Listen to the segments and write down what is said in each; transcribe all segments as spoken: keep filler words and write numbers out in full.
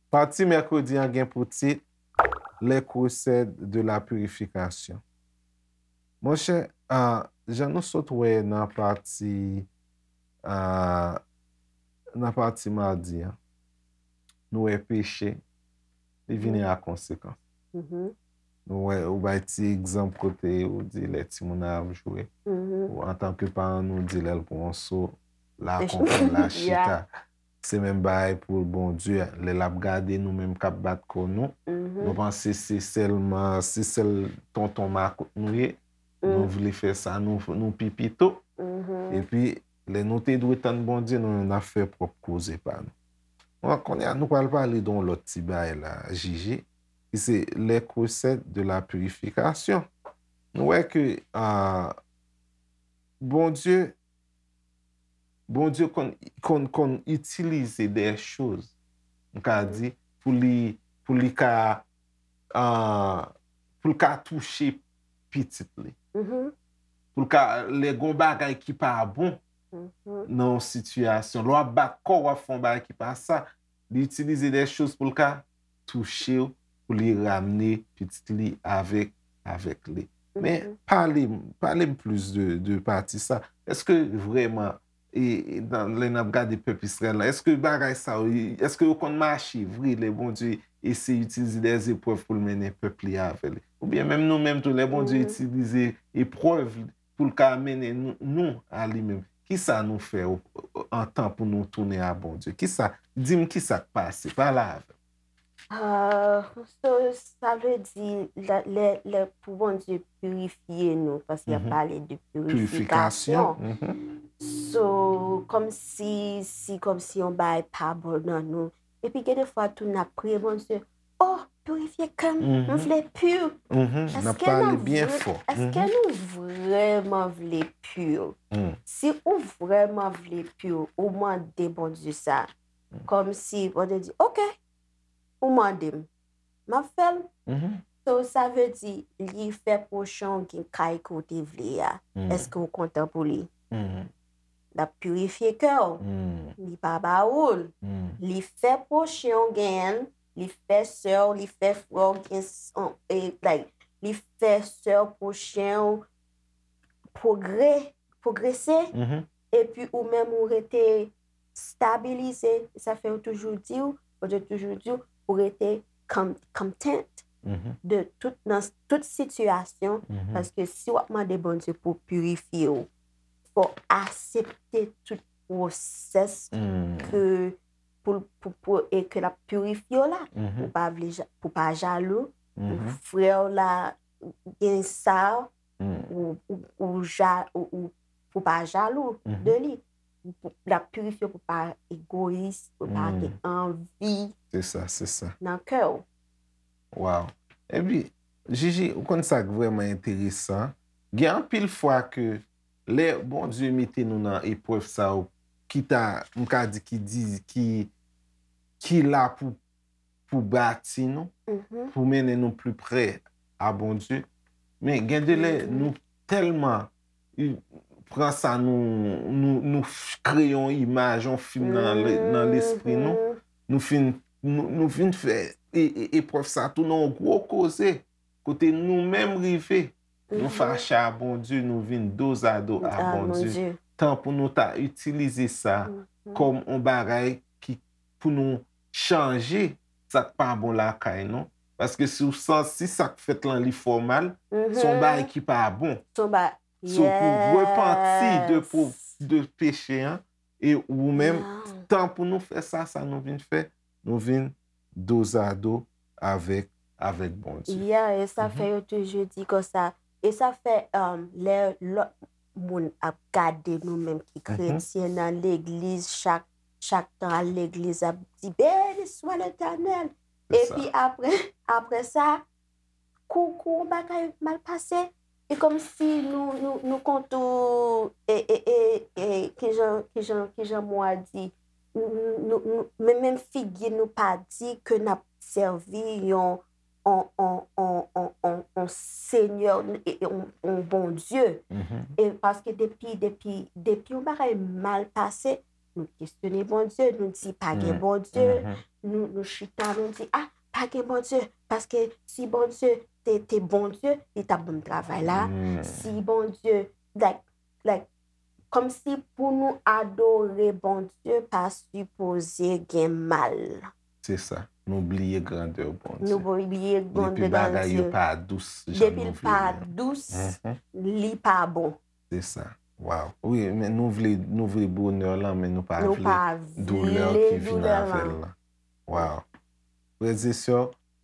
Pati mèkredi an gen pou tit Les recettes de la purification. Monchè, ah, jan nou sot wè nan pati, ah, nan pati madi an, nou wè peche, li vini a konsekans. Nou wè, ou bay ti egzanp kote ou di lè timoun nan ap jwe, ou antanke paran nou di lè l pran yon so, l a konprann, l a chita. Se menm bagay pou Bondye, lè l ap gade nou menm k ap bat kò nou, nou panse se sèlman, se sèl tonton makout nou ye, nou vle fè sa, nou, nou pi pito. Epi, lè nou te dwe tann Bondye, nou menm n ap fè pwòp koze pa nou. Bon, kounye a, nou pral pale de yon lòt ti bagay la, Jiji, ki se les recettes de la purification. Nou wè ke, ah, Bondye, Bondye konn, konn, konn itilize de choz, m ka di, pou li, pou li ka, ah, pou l ka touche pitit li. Pou l ka, lè gon bagay ki pa bon nan yon sitiyasyon, lè w ap bat kò w, w ap fè yon bagay ki pa sa, li itilize de choz pou l ka touche w, pou li ramne pitit li avèk, avèk li. Men, pale m, pale m plis de, de pati sa. Èske vrèman, e, e, nan, lè n ap gade pèp Izrayèl la, èske bagay sa yo, èske yo konn mache vre lè Bondye eseye itilize de eprèv pou l mennen pèp li avè li? Oubyen menm nou menm tou, lè Bondye itilize eprèv pou l ka mennen nou, nou a li menm, kisa nou fè o, o, an tan pou nou tounen a Bondye? Kisa, di m kisa k pase? Pale avè m. Ah, so, sa vle di, lè, lè, lè pou Bondye pirifye nou, paske y ap pale de pirifikasyon. So, kòmsi, si, kòmsi yon bagay pa bon nan nou. Epi gen de fwa tou n ap priye Bondye, oh, pirifye kè m, m vle pi. Èske nou vre-, èske nou vrèman vle pi? Si ou vrèman vle pi, ou mande Bondye sa. Kòmsi Bondye di, ok, ou mande m, m ap fè l. So, sa vle di, li fè pwochen w gen kay ke w te vle a. Èske w kontan pou li? L ap pirifye kè w. Li pa ba ou l. Li fè pwochen w genyen l. Li fè sè w, li fè frè w gen s-, on, e, like, li fè sè w pwochen w pwogre-, pwogrese. Epi ou menm ou rete stabilize. Sa fè yo toujou di w, Bondye toujou di w, pou rete con-, content de tout, nan tout sitiyasyon, paske si w ap mande Bondye pou pirifye w, fò w aksepte tout pwosès ke pou, pou, pou, e ke l ap pirifye w la, pou pa vle ja-, pou pa jalou, pou frè w la gen sa, ou, ou, ou ja-, ou, ou, pou pa jalou de li. Pou, l ap pirifye w pou pa egoyis, pou pa gen anvi nan kè w. Wow. Epi, Jiji, ou konn sa k vrèman enteresan? Gen anpil fwa ke lè Bondye mete nou nan eprèv sa yo, ki ta, m ka di, ki di, ki, ki la pou, pou bati nou, pou mennen nou pli pre a Bondye. Men gen de lè, nou tèlman, i, pran sa, nou, nou, nou f-, kreye yon imaj, yon fim nan le-, nan lespri nou. Nou fin, nou, nou vin fè e, e, eprèv sa tou nan yon gwo koze. Kote nou menm rive, nou fache a Bondye, nou vin dozado a Bondye. Tan pou nou ta itilize sa kòm yon bagay ki pou nou chanje sa k pa bon lakay nou. Paske si w santi sa k fèt lan li fè w mal, se yon bagay ki pa bon. So, pou repanti de po-, de peche an, e ou menm, tan pou nou fè sa, sa nou vin fè, nou vin dozado avèk, avèk Bondye. Yeah, e sa fè yo toujou di konsa, e sa fè, um, lè lòt moun ap gade nou menm ki kretyen nan legliz, chak, chak tan al legliz, ap di, "Beni swa Letènèl." Epi apre, apre sa, kou, kou yon bagay mal pase, e kòmsi nou, nou, nou kontou, e, e, e, e, kijan, kijan, kijan mo a di, nou, nou, nou, men, menm figi nou pa di ke n ap sèvi yon, on, on, on, on, on, yon senyè, e- e- yon yon Bondye. E paske depi, depi, depi yon bagay mal pase, nou kesyone Bondye, nou di pa gen Bondye, nou, nou chita, nou di, ah, pa gen Bondye, paske si Bondye te, te Bondye, li t ap ban m travay la, si Bondye, like, like, kòmsi pou nou adore Bondye pa sipoze gen mal. Se sa. Nou bliye grandè Bondye. Nou bliye grandè Depi bagay yo Bondye. Pa dous jan Depi nou l vle pa li. dous, li pa bon. Se sa. Wow. Wi, men nou vle, nou vle bonè lan, men nou pa Nou vle pa doulè vle ki vin doulè avè lan. L lan. Wow. Frè e sè,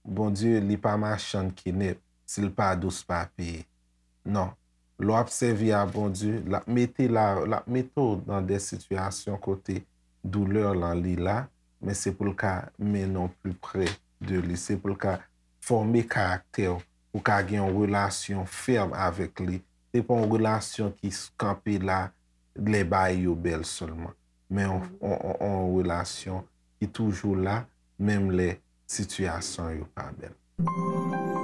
Bondye, li pa machann ki nèt. Si l pa dous, pa peye. Non. Lè w ap sèvi a Bondye, l ap mete la, l ap mete w nan de sitiyasyon kote doulè lan li la, men se pou l ka mennen w pli pre de li. Se pou l ka fòme karaktè w, pou w ka gen yon relasyon fèm avèk li. Se pa yon relasyon ki s- kanpe la lè bagay yo bèl sèlman, men yon, yon, yon, yon relasyon ki toujou la, menm lè sitiyasyon yo pa bèl.